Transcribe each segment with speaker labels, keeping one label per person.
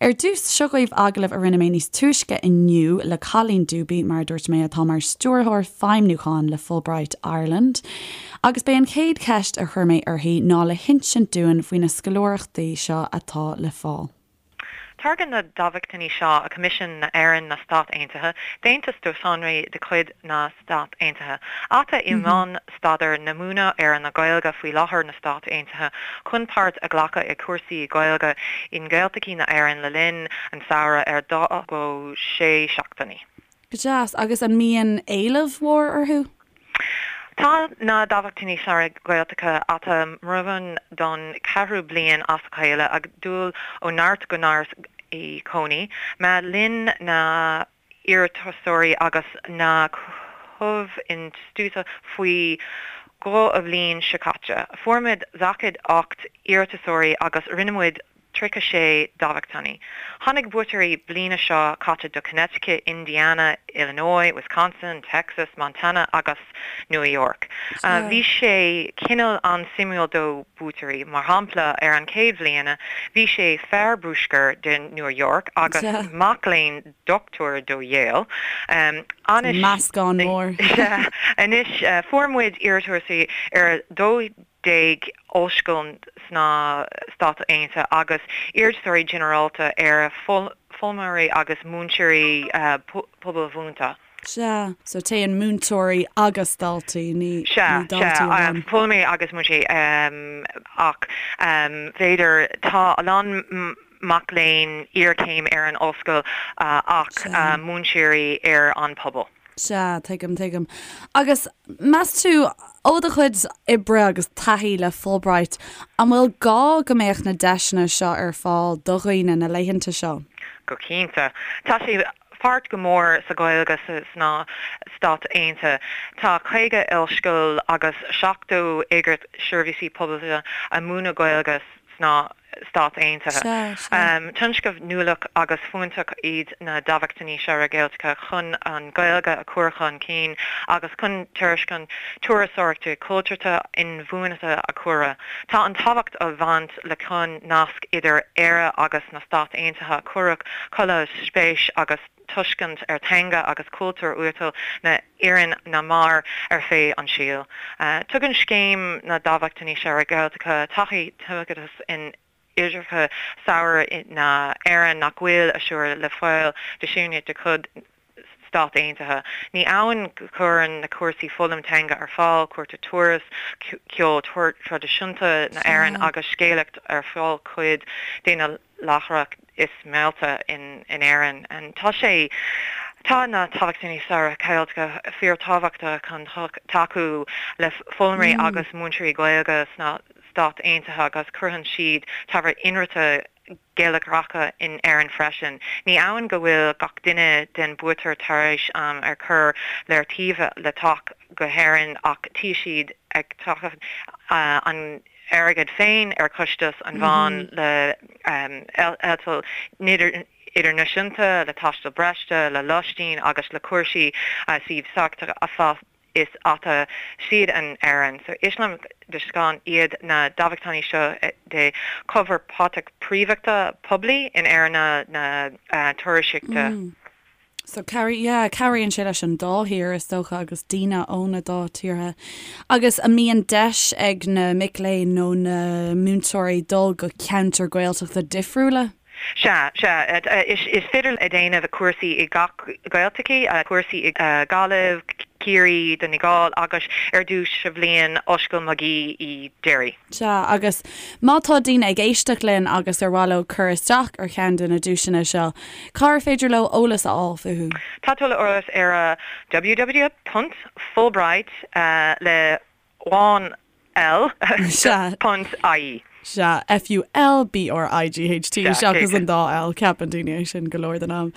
Speaker 1: Ar dtús, seo dhaoibh agallamh a rinne mé níos túisce inniu le Colleen Dube, mar a dúirt mé, atá mar Stiúrthóir Feidhmiúcháin le Fulbright Ireland. Agus b'é an chéad cheist a chuir mé uirthi ná le hinsint dúinn faoi na scoláireachtaí seo atá le fáil.
Speaker 2: Tairgeann na dámhachtainí seo a Coimisiún na Éireann na Stát Aontaithe deontas do sonraí de chuid na Stát Aontaithe, ata i mbun staidéar na múineadh ar na Gaeilge faoi láthair na Stát Aontaithe chun páirt a ghlacadh i cúrsaí Gaeilge i nGaeltachtaí na Éireann le linn an samhradh ar 2 go 6 seachtainí.
Speaker 1: Go deas. Agus an mbíonn éileamh mhór orthu?
Speaker 2: Tá na Dámhachtainí Samhraidh Gaeltachta ata mbrabhán don cheathrú bliain as a chéile ag dul ó neart go neart i gcónaí. Má linn na iarratasóirí agus na comh-institiúide faoi dhó a bhliain seo caite. Fuair muid 48 iarratasóirí agus rinne muid 36 dámhachtainí. Tháinig buaiteoirí bliana seo caite do Connecticut, Indiana, Illinois, Wisconsin, Texas, Montana agus New York. Bhí sé cineál an-suimiúil do buaiteoirí. Mar shampla, ar an chéad bhliana, bhí sé fear bruscair de New York agus mac léinn dochtúir do Yale.
Speaker 1: Anois, Meascán mór.
Speaker 2: Anois, fuair muid iarratasóirí ar 12 ollscoil sna Stáit Aontaithe agus iarratasóirí ginearálta ar foghlaimeoirí agus múinteoirí pobalbhunaithe.
Speaker 1: Sea, so téann múinteoirí agus daltaí, ní
Speaker 2: daltaí amháin. Sea, foghlaimeoirí agus múinteoirí ach b'fhéidir tá a lán mac léinn iarchéim ar an ollscoil ach múinteoirí ar an pobal.
Speaker 1: Sea, tuigim, tuigim. Agus meas tú, ó do chuid oibre agus taithí le Fulbright, an bhfuil gá go mbeadh na deiseanna seo ar fáil do dhaoine na laethanta seo?
Speaker 2: Go cinnte. Tá sé pháirt go mór sa Ghaeilge sna Stáit Aontaithe. Tá 50 ollscoil agus 70 eagraíocht seirbhísí pobail a múineadh Gaeilge sna Stáit Aontaithe. Tionscnamh nuálach agus fiúntach iad na Dámhachtainí Samhraidh Gaeltachta chun an Ghaeilge a chur chun cinn agus chun tairiscint turasóireachta cultúrtha inbhuanaithe a chur. Tá an tábhacht a bhaint le chun nasc idir Éire agus na Stáit Aontaithe a chur chuile spéis agus tuiscint ar teanga agus cultúr uathúil na hÉireann na mar ar feadh an saoil. Tugann Scéim na Dámhachtainí Samhraidh Gaeltachta taithí tumoideachas in oideachas samhraidh na hÉireann nach bhfuil asur le fáil do siúine de chuid Stát Aontaithe. Ní amháin go cuireann na cúrsaí foghlaim teanga ar fáil, cuairte turas, ceol traidisiúnta na hÉireann agus scéalaíocht ar fáil cuid de na láithreacha is meallta in Éirinn. Tá sé Tá na Dámhachtainí Samhraidh Gaeltachta fíorthábhachtach chun tacú le foghlaimeoirí agus múinteoirí Gaeilge sna Stáit Aontaithe agus cuireann siad ábhar inrite geilleagracha in Éirinn freisin. Ní amháin go bhfuil gach duine den buaiteoir tar éis am ar chur le taobh le teacht go hÉirinn ach tí siad ag teacht an airgead féin ar chostas an bhonn le eitilt idirnáisiúnta, le taisteal breise, le lóistín agus le cúrsaí suímh sachtach a fad is ata siad in Éirinn. So is deisceán iad na dámhachtainí seo de chomhpháirtíocht príomhachta poiblí in Éirinn na turasóireachta.
Speaker 1: So yeah, cabhraíonn sé leis an dá thír is dócha agus daoine ó na dá tíortha. Agus an mbíonn deis ag na mic léinn nó na múinteoirí dul go ceantair Gaeltachta difriúla?
Speaker 2: Sea, sea. Is féidir a déanamh cúrsaí i gach Gaeltachtaí, cúrsaí i Gaillimh, Ciarraí, Donegal agus ar dtús sa bhliain Ollscoil Magee i Derry.
Speaker 1: Sea, agus má tá daoine ag éisteacht linn agus ar mhaith leo cur isteach ar cheann de na duaiseanna seo, cár féidir leo eolas a fháil fúthu?
Speaker 2: Tá tuilleadh eolas ar www ponc Fulbright le amháin L ponc ie.
Speaker 1: Sea, F-U-L-B-R-I-G-H-T seachas an dá L, ceapann daoine é sin go leor den am.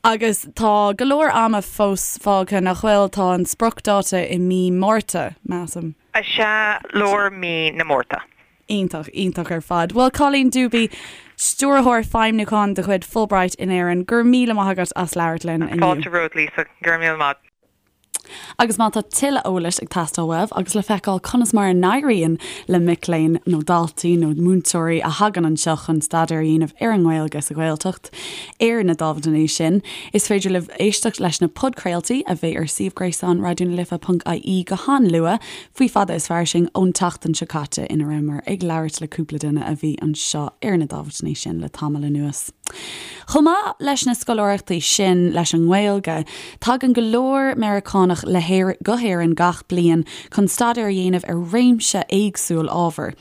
Speaker 1: Agus tá go leor ama fós fágtha, nach bhfuil? Tá an spriocdháta i mí Márta, measaim.
Speaker 2: Sea, lár mí na Márta.
Speaker 1: Iontach, iontach ar fad. Bhuel, Colleen Dube, Stiúrthóir Feidhmiúcháin de chuid Fulbright in Éirinn, go raibh míle maith agat as labhairt linn
Speaker 2: inniu. Fáilte romhat, Lisa. Go raibh míle maith.
Speaker 1: Agus má tá tuilleadh eolais ag teastáil uaibh agus le feiceáil conas mar a n-éiríonn le mic léinn nó daltaí nó múinteoirí a thagann anseo chun staidéar a dhéanamh ar an nGaeilge sa Ghaeltacht ar na dámhachtainí sin, is féidir libh éisteacht leis na podchraoltaí a bheidh ar suíomh gréasáin Raidió na Life ponc ie go han-luath faoi Fada is Fairsing ón tseachtain seo caite ina rabhamar ag labhairt le cúpla duine a bhí anseo ar na dámhachtainí sin le tamall anuas. Chomh maith leis na scoláireachtaí sin leis an nGaeilge, tagann go leor Meiriceánach le go hÉirinn gach bliain chun staidéar a dhéanamh ar réimse éagsúil ábhar.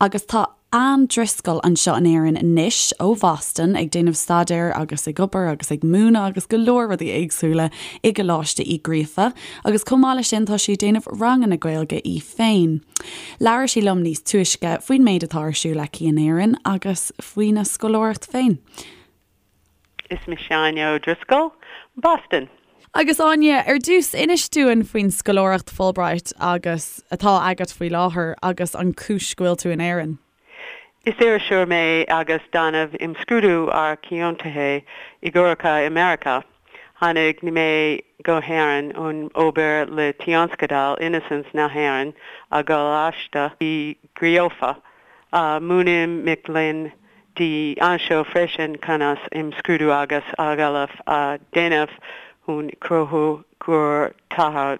Speaker 1: Agus tá Anne Driscoll anseo in Éirinn anois ó Bhoston ag déanamh staidéir agus ag obair agus ag múineadh agus go leor rudaí éagsúla i gColáiste Uí Ghríofa agus chomh maith leis sin tá sí ag déanamh ranganna Gaeilge í féin. Labhair sí liom níos túisce faoin méid atá ar siúl aici in Éirinn agus faoina scoláireacht féin.
Speaker 3: Is mise Áine O'Driscoll, Boston.
Speaker 1: Agus Áine, ar dtús, inis dúinn faoin scoláireacht Fulbright agus atá agat faoi láthair agus an cúis go bhfuil tú in Éirinn.
Speaker 3: Is iriseoir mé agus déanamh imscrúdú ar ciontuithe i gcoireacha i Meiriceá. Tháinig mé go hÉirinn chun obair le Tionscadal Innocence na hÉireann i gColáiste Uí Ghríofa. Múinim mic léinn dlí anseo freisin conas imscrúdú agus agallamh a dhéanamh chun cruthú gur tharla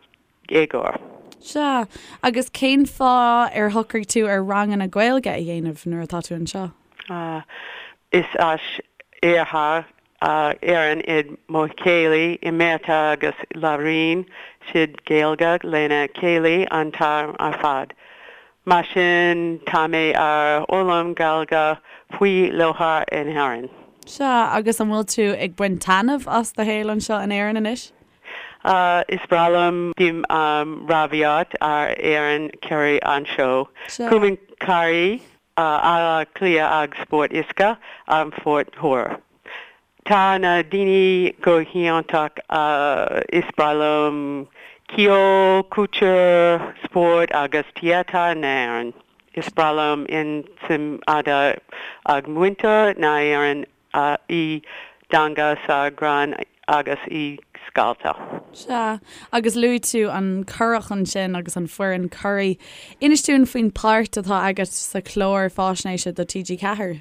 Speaker 3: éagóir.
Speaker 1: Sea, agus cén fáth ar shocraigh tú ar ranganna Gaeilge a dhéanamh nuair atá tú anseo?
Speaker 3: Is as Iarthar Éireann iad mo chéilí i Meiriceá agus labhraíonn siad Gaeilge lena chéile an t-am ar fad. Mar sin tá mé ar fhoghlaim Gaeilge faoi láthair in Éirinn.
Speaker 1: Sea, agus an bhfuil tú ag baint taitneamh as do shaol anseo in Éirinn anois?
Speaker 3: Is breá liom bím ràmhaíocht ar fhoireann curaidh anseo.
Speaker 1: Sea.
Speaker 3: Cumann Curaidh Átha Cliath ag Spórt Uisce an Phort Thoir. Tá na daoine go hiontach is breá liom ceol, cultúr, spórt agus téatar na hÉireann. Is breá liom an tsuim atá ag muintir na hÉireann i dteanga sa ghreann agus i scéalta.
Speaker 1: Sea, agus luaigh tú an curach ansin agus an foireann curaidh. Inis dúinn faoin páirt atá agat sa chlár fáisnéise do TG4.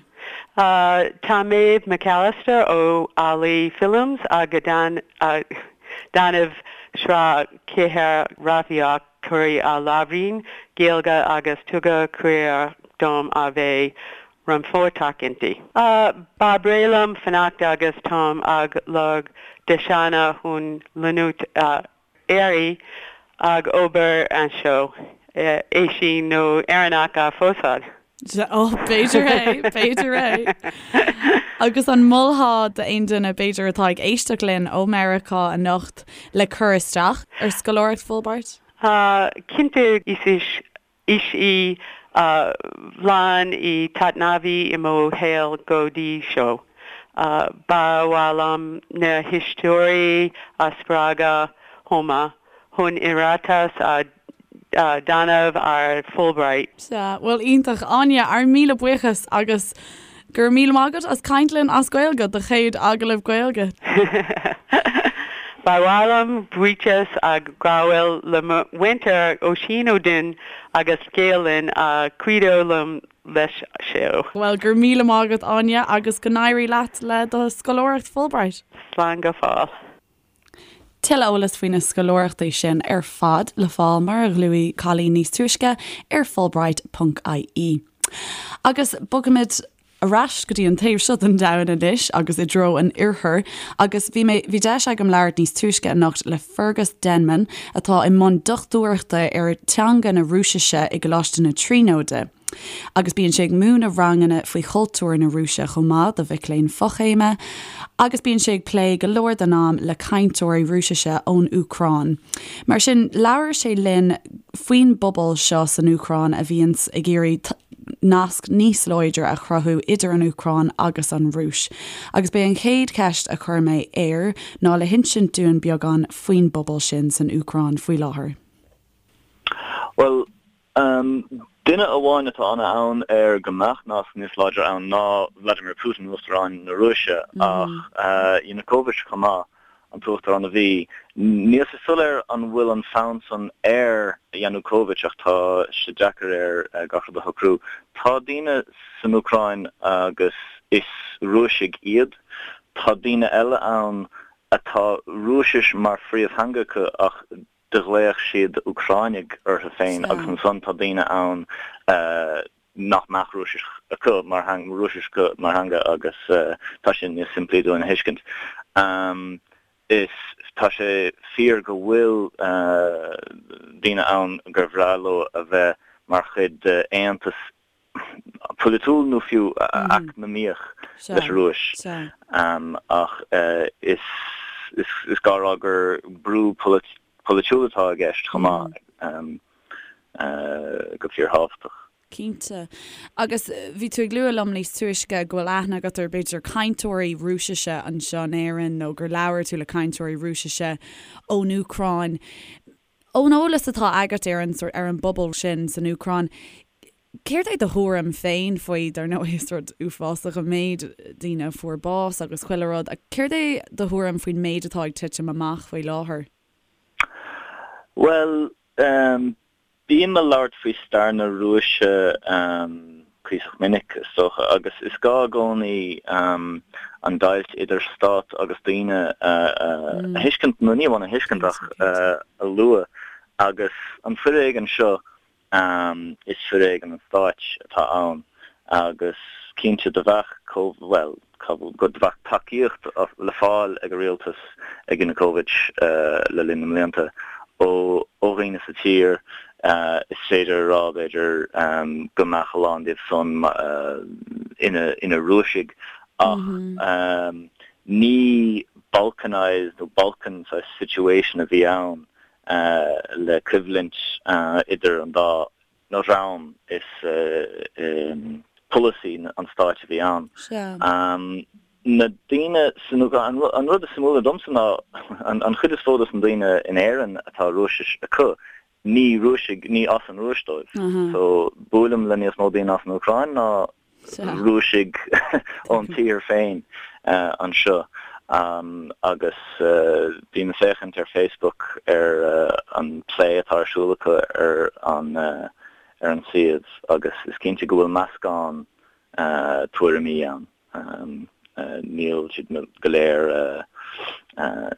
Speaker 3: Tá Maeve McAllister ó Allaidh Films ag déanamh sraith cheithre ràmhaíocht curaidh a labhraíonn Gaeilge agus tugadh cuireadh dom a bheith rannpháirteach inti. Ba bhreá liom fanacht agus táim ag lorg deiseanna chun leanúint ar aghaidh ag obair anseo, é sin nó Éireannach a phósadh.
Speaker 1: Ó, b'fhéidir é, b'fhéidir é. Agus an molfá d'aon duine, b'fhéidir, atá ag éisteacht linn ó Meiriceá anocht le cur isteach ar scoláireacht Fulbright?
Speaker 3: Cinnte, is Is í an bhliain is taitneamhaí i mo shaol go dtí seo. Ba mhaith liom na héisteoirí a spreagadh chomh maith chun iarratas a dhéanamh ar Fulbright.
Speaker 1: Sea, bhuel iontach. Áine, ár míle buíochas agus Go raibh míle maith agat as caint linn as Gaeilge, do chéad agallamh Gaeilge.
Speaker 3: Ba mhaith liom buíochas a ghabháil le mo mhúinteoir Oisín Ó Duinn agus Gael Linn a chuidigh liom leis seo.
Speaker 1: Bhuel, go raibh míle maith agat Áine agus go n-éirí leat le do scoláireacht Fulbright.
Speaker 3: Slán go fóill.
Speaker 1: Tuilleadh eolais faoi na scoláireachtaí sin ar fad le fáil mar a luaigh Colleen níos túisce ar fulbright ponc ie. Agus bogfaimid ar ais go dtí an taobh seo den domhan anois agus i dtreo an oirthir agus bhí mé bhí deis agam labhairt níos túisce anocht le Fergus Denman atá i mbun dochtúireachta ar teanga na Rúisise i gColáiste na Tríonóide. Agus bíonn sé ag múineadh ranganna faoi chultúr na Rúise chomh maith do mhic léinn fochéime, agus bíonn sé ag plé go leor den am le cainteoirí Rúisise ón Úcráin. Mar sin, labhair sé linn faoin bpobal seo san Úcráin a bhíonns ag iarraidh nasc níos láidre a chruthú idir an Úcráin agus an Rúis. Agus b'é an chéad cheist a chuir mé air ná le hinsint dúinn beagán faoin bpobal sin san Úcráin faoi láthair.
Speaker 4: Bhuel, Duine amháin atá an-fhonn air go mbeadh nasc níos láidre ann ná Vladimir Putin, Uachtarán na Rúise, ach Yanukovych chomh maith. an t-uachtarán a bhí. Níl sé soiléir an bhfuil an fonn san ar Yanukovych ach tá sé deacair air gach rud a shocrú. Tá daoine san Úcráin agus is Rúisigh iad. Tá daoine eile ann atá Rúisis mar phríomhtheanga acu ach do ghlaodh siad Úcráinigh orthu féin agus ansan tá daoine ann nach mbeadh Rúisis acu mar Rúisis acu mar theanga agus tá sé níos simplí dúinn a thuiscint. Is tá sé fíor go bhfuil daoine ann gur bhreá leo a bheith mar chuid d'aontas polaitiúil nó fiú eacnamaíoch leis an Rúis. Ach is gá a rá gur brú polaitiúil atá i gceist chomh maith, go fíorthábhachtach.
Speaker 1: Cinnte. Agus bhí tú ag lua liom níos túisce go bhfuil aithne agat ar b'fhéidir cainteoirí Rúisise anseo in Éirinn nó gur labhair tú le cainteoirí Rúisise ón Úcráin. Ón eolas atá agat ar an sórt, ar an bpobal sin san Úcráin, céard é do thuairim féin faoi, dar ndóigh is rud uafásach an méid daoine a fuair bás agus chuile rud, ach céard é do thuairim faoin méid atá ag titim amach faoi láthair?
Speaker 4: Bhuel, Bím ag labhairt faoi stair na Rúise cuíosach minic, is dócha, agus is gá i gcónaí an deighilt idir stát agus daoine a thuiscint, nó ní amháin a thuiscint ach a lua. Agus an foréigean seo, is foréigean an stáit atá ann, agus cinnte do bheadh, bhuel, go bheadh tacaíocht le fáil ag an rialtas, ag Yanukovych le linn na mblianta, ó dhaoine sa tír. Is féidir a rá, b'fhéidir, go mbeadh a lán díobh san ina Rúisigh, ach ní balkanised nó Balkan saghas situation a bhí ann le coimhlint idir an dá dhream, is polasaí an stáit a bhí ann. Na daoine san Úcráin, an rud is suimiúla domsa ná an chuid is mó dos na daoine in Éirinn atá Rúisis acu, ní Rúisigh, ní as an Rúis dóibh. So buailim le níos mó daoine as an Úcráin ná Rúisigh ón tír féin anseo agus bím ag féachaint ar Facebook ar an plé atá ar siúl acu ar an ar an suíomh agus is cinnte go bhfuil meascán tuairimí ann. Níl siad go léir,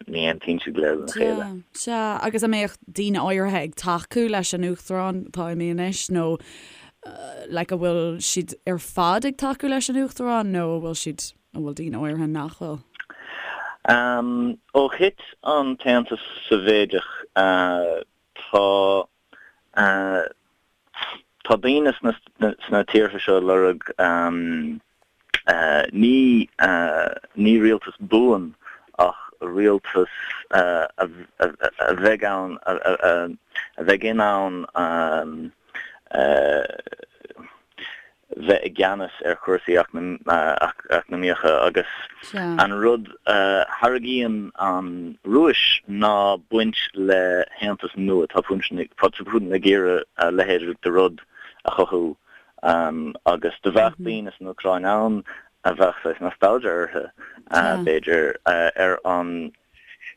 Speaker 4: ní aontaíonn siad go léir lena chéile.
Speaker 1: Sea, agus an mbeadh daoine áirithe ag tacú leis an Uachtarán atá imithe anois nó like an bhfuil siad ar fad ag tacú leis an Uachtarán nó an bhfuil siad, an bhfuil daoine áirithe nach bhfuil?
Speaker 4: Ó thit an tAontas Sóivéadach tá Tá daoine sna tíortha seo ag lorg ní ní rialtas buan ach rialtas a bheidh ann a bheidh in ann bheith i gceannas ar chúrsaí eacnamaíocha agus an rud a thairgíonn an Rúis ná baint le haontas nua. Tá Putin ag iarraidh a leithéid de rud a chothú agus do bheadh daoine san Úcráin ann a bheadh saghas nostalgia orthu, b'fhéidir, ar an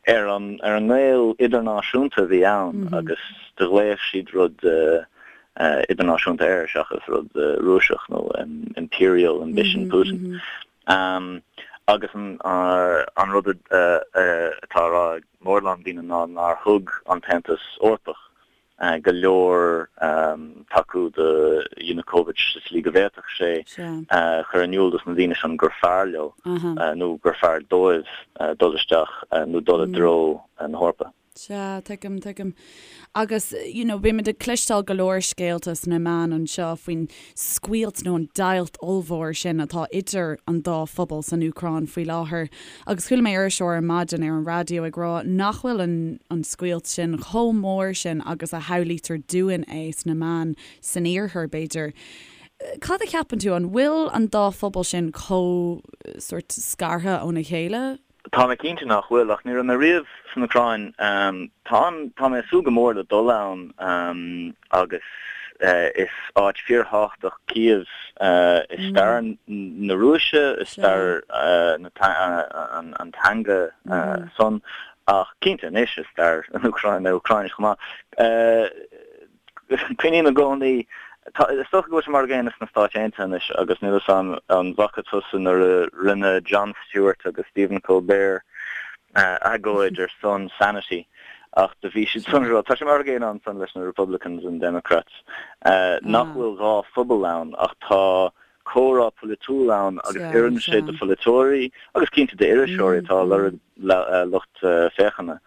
Speaker 4: ar an ar an ngaol idirnáisiúnta a bhí ann agus do ghlaodh siad rud idirnáisiúnta air seachas rud Rúiseach nó imperial ambition Putin. Agus an an rud atá á rá ag mórán daoine ná nár thug an tAontas Eorpach go leor tacú do Yanukovych sa tslí go bhféadfadh sé chur in iúl dos na daoine sin gur fearr leo nó gur fearr dóibh dul isteach nó dul i dtreo na hEorpa.
Speaker 1: Sea, tuigim, tuigim. Agus, you know, bímid ag cloisteáil go leor scéalta sna meáin anseo faoin scoilt nó an deighilt ollmhór sin atá idir an dá phobal san Úcráin faoi láthair. Agus chuala mé iriseoir ar maidin ar an raidió ag rá nach bhfuil an an scoilt sin chomh mór sin agus a shamhlaítear dúinn é sna meáin san iarthar, b'fhéidir. Cad a cheapann tú, an bhfuil an dá phobal sin chomh sórt scartha óna chéile?
Speaker 4: Tá mé cinnte nach bhfuil, ach ní raibh mé riamh san Úcráin. Tá an, tá mé ag súil go mór le dul ann agus. is áit fíorthábhachtach Cív i stair na Rúise, i stair an teanga san, ach cinnte anois i stair na Úcráine chomh maith. Cuimhním i gcónaí, is dócha go bhfuil sé mar an gcéanna sna Stáit Aontaithe anois agus níl 'fhios a'm an bhfaca tusa nuair a rinne Jon Stewart agus Stephen Colbert agóid ar son sanity ach do bhí siad san ag rá, tá sé mar an gcéanna ansan leis na Republicans and Democrats, nach bhfuil dhá phobal ann ach tá comhrá polaitiúil ann agus oireann sé do pholaiteoirí agus cinnte d'iriseoirí atá ag lorg lucht féachana.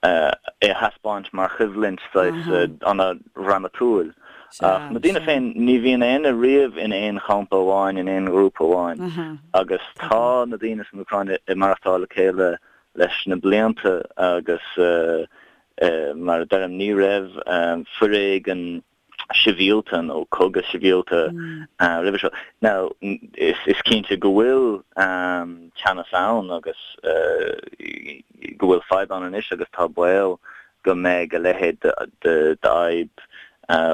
Speaker 4: é a thaispeáint mar choimhlint saghas ana-dhrámatúil. Ach na daoine féin, ní bhíonn éinne riamh in aon champa amháin, in aon ghrúpa amháin. Agus tá na daoine san Úcráin ag maireachtáil le chéile leis na blianta agus mar a deirim, ní raibh foréigean sibhialta nó cogadh sibhialta roimhe seo. Now, is cinnte go bhfuil teannas ann agus go bhfuil fadhb ann anois agus tá baol go mbeidh a leithéid d'fhadhb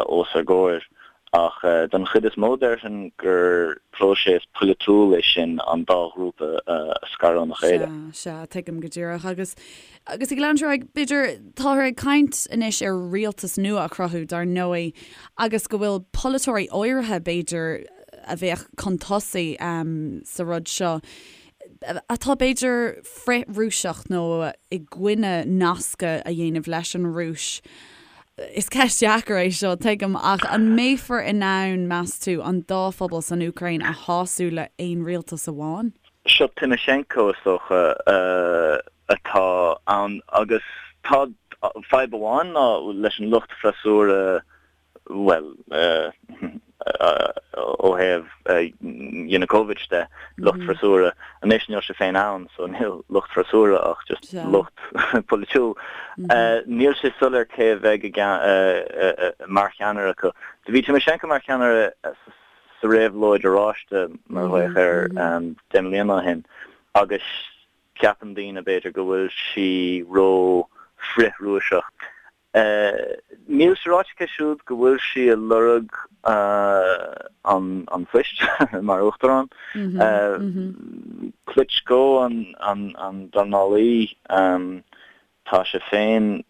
Speaker 4: os ár gcomhair. Ach don chuid is mó déarfainn gur próiseas polaitiúil é sin an dá ghrúpa a scaradh óna chéile.
Speaker 1: Sea, sea, tuigim go díreach. Agus Agus ag leanúint ar aghaidh, b'fhéidir, táthar ag caint anois ar rialtas nua a chruthú, dar ndóigh, agus go bhfuil polaiteoirí áirithe, b'fhéidir, a bheadh chun tosaigh sa rud seo, atá b'fhéidir frith-Rúiseach nó i gcoinne nascadh a dhéanamh leis an Rúis. Is ceist dheacair é seo, tuigim, ach an mbeifear in ann, meas tú, an dá phobal san Úcráin a shású le haon rialtas amháin?
Speaker 4: Seo Tymoshenko, is dócha, atá ann agus tá fadhb amháin ná leis an lucht freasúra, bhuel, ó thaobh Yanukovych de, lucht freasúra, anois níl sé féin ann so níl lucht freasúra ach just lucht polaitiúil. Níl sé soiléir cé a bheidh mar cheannaire acu. Do bhí Tymoshenko mar cheannaire sa réabhlóid oráiste, mar a ghlaodh air, 10 mbliana ó shin agus Ceapann daoine, b'fhéidir, go bhfuil sí ró frith-Rúiseach. Níl sé ráite aici siúd go bhfuil sí ag lorg an phoist mar uachtarán. Klitschko an dornálaí. Tá sé féin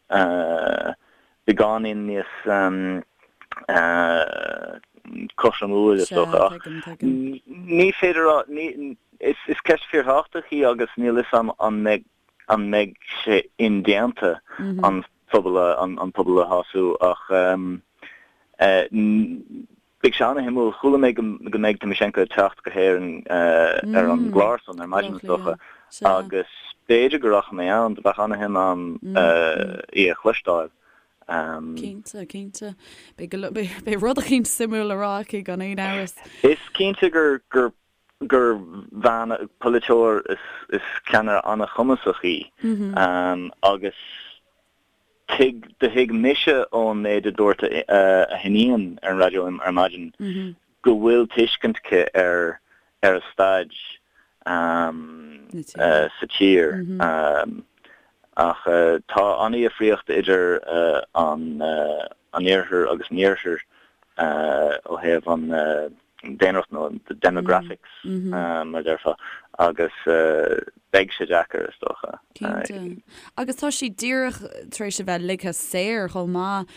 Speaker 4: beagáinín níos cothromúil, is dócha, ach ní féidir a rá, is ceist fíorthábhachtach í agus níl 'fhios a'm an mbeidh an mbeidh sé indéanta an phobal an pobal a shású ach Beidh sé ana-shuimiúil. Chuala mé go mbeidh Tymoshenko ag teacht go hÉirinn ar an gclár san ar maidin is dócha agus b'fhéidir go rachaidh mé ann. Do bheadh ana-shuim a'm í a chloisteáil.
Speaker 1: Cinnte, cinnte. Beidh rud eicínt suimiúil le rá aici gan aon amhras.
Speaker 4: Is cinnte gur gur gur bhean, polaiteoir is ceannaire ana-chumasach í agus Tuig, do thuig mise ón méid a dúirt a hiníon ar an raidió ar maidin go bhfuil tuiscint aici ar ar a staid sa tír. Ach tá an-dhifríocht idir an iarthar agus an iarthar ó thaobh an daonracht nó the demographics mar a déarfá agus beidh sé deacair is dócha.
Speaker 1: Cinnte. Agus tá sí díreach tar éis a bheith ligthe saor chomh maith.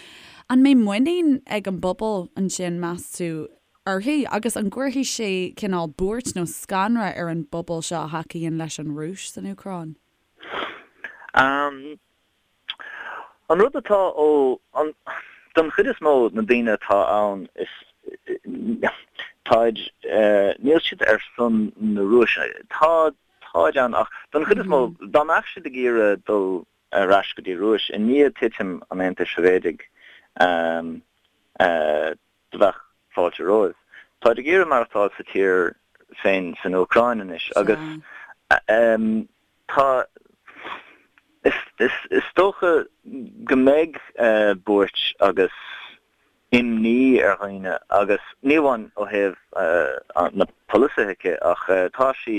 Speaker 1: An mbeidh muinín ag an bpobal ansin, meas tú, uirthi? Agus an gcuirfidh sé cineál buairt nó scanradh ar an bpobal seo a thacaíonn leis an Rúis san Úcráin?
Speaker 4: An rud atá ó, an, don chuid is mó na daoine atá ann is, táid, níl siad ar son na Rúise. Tá, táid ann ach don chuid is mó, dá mbeadh siad ag iarraidh dul ar ais go dtí Rúis i ndiaidh titim an Aontais Shóivéadaigh, do bheadh fáilte romhaibh. Táid ag iarraidh maireachtáil sa tír féin san Úcráin anois agus Tá, is dócha go mbeidh buairt agus imní ar dhaoine agus ní amháin ó thaobh na polasaithe aici ach tá sí.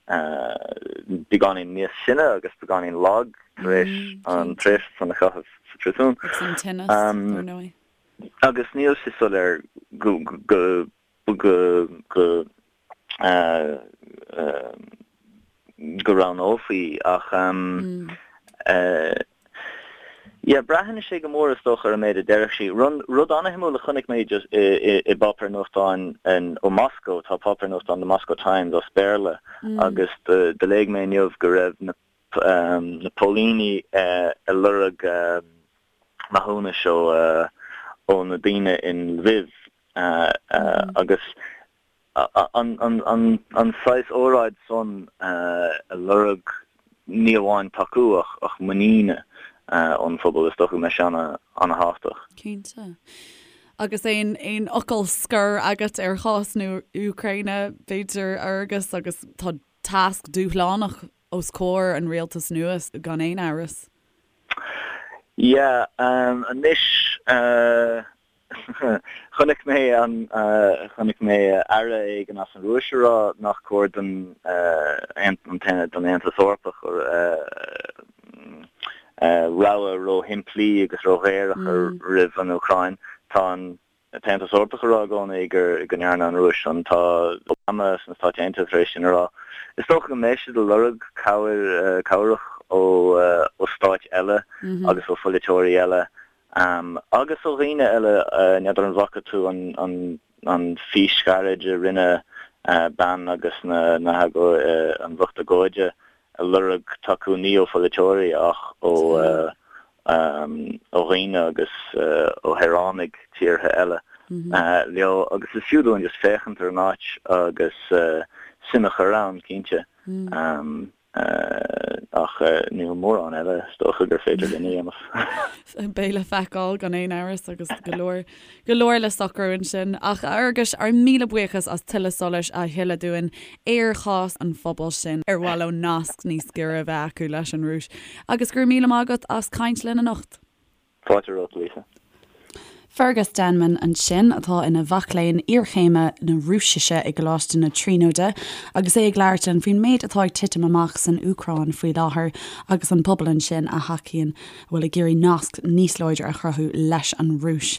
Speaker 4: beagáinín níos sine agus beagáinín lag tar éis an tréimhse san a chaitheamh sa phríosún.
Speaker 1: Agus an tinneas, dar ndóigh.
Speaker 4: Agus níl sé soiléir go go go go go roghnófaí ach yeah braitheann sé go mór is dócha ar an méid a déarfadh sí. Rud an-shuimiúil a chonaic mé just i bpáipéar nuachtáin ó Moscow, tá páipéar nuachtáin The Moscow Times as Béarla agus do léigh mé inniu go raibh na na póilíní ag lorg maithiúnais ó na daoine in Lviv agus an saghas óráid san ag lorg ní amháin tacú ach muiníne ón phobal, is dócha go mbeidh sé ana-thábhachtach.
Speaker 1: Cinnte. Agus aon aon fhocal scoir agat ar chás na hÚcráine, b'fhéidir, a Fhearghais, agus tá tasc dúshlánach os comhair an rialtais nua gan aon amhras.
Speaker 4: Yeah, anois Chonaic mé an, chonaic mé aire éigin as an Rúis ag rá nach cóir don don Aontas Eorpach rogha ró-shimplí agus ró-ghéar a chur roimh an Úcráin. Tá an tAontas Eorpach ag rá i gcónaí gur go ndearna an Rúis san. Tá Obama sna Stáit Aontaithe tar éis sin a rá. Is dócha go mbeidh siad ag lorg cabhair, cabhrach ó ó stáit eile agus ó pholaiteoirí eile. Agus ó dhaoine eile, n'fheadar an bhfaca tú an fís ghairid a rinne bean agus na an lucht agóide ag lorg tacú ní ó pholaiteoirí ach ó dhaoine agus ó shaoránaigh tíortha eile leo agus is fiú dúinn just féachaint ar an áit agus suim a chur ann, cinnte. Ach níl mórán eile is dócha gur féidir linn a
Speaker 1: dhéanamh. Beidh le feiceáil gan aon amhras agus go leor, go leor le socrú ansin. Ach a Fhearghais, ár míle buíochas as tuilleadh solais a shileadh dúinn ar chás an phobail sin ar mhaith leo nasc níos giorra a bheith acu leis an Rúis. Agus go raibh míle maith agat as caint linn anocht.
Speaker 4: Fáilte romhat, Lisa.
Speaker 1: Fergus Denman ansin, atá ina mhac léinn iarchéime na Rúisise i gColáiste na Tríonóide, agus é ag labhairt linn faoin méid atá ag titim amach san Úcráin faoi láthair agus an pobal ansin a thacaíonn, a bhfuil ag iarraidh nasc níos láidre a chruthú leis an Rúis.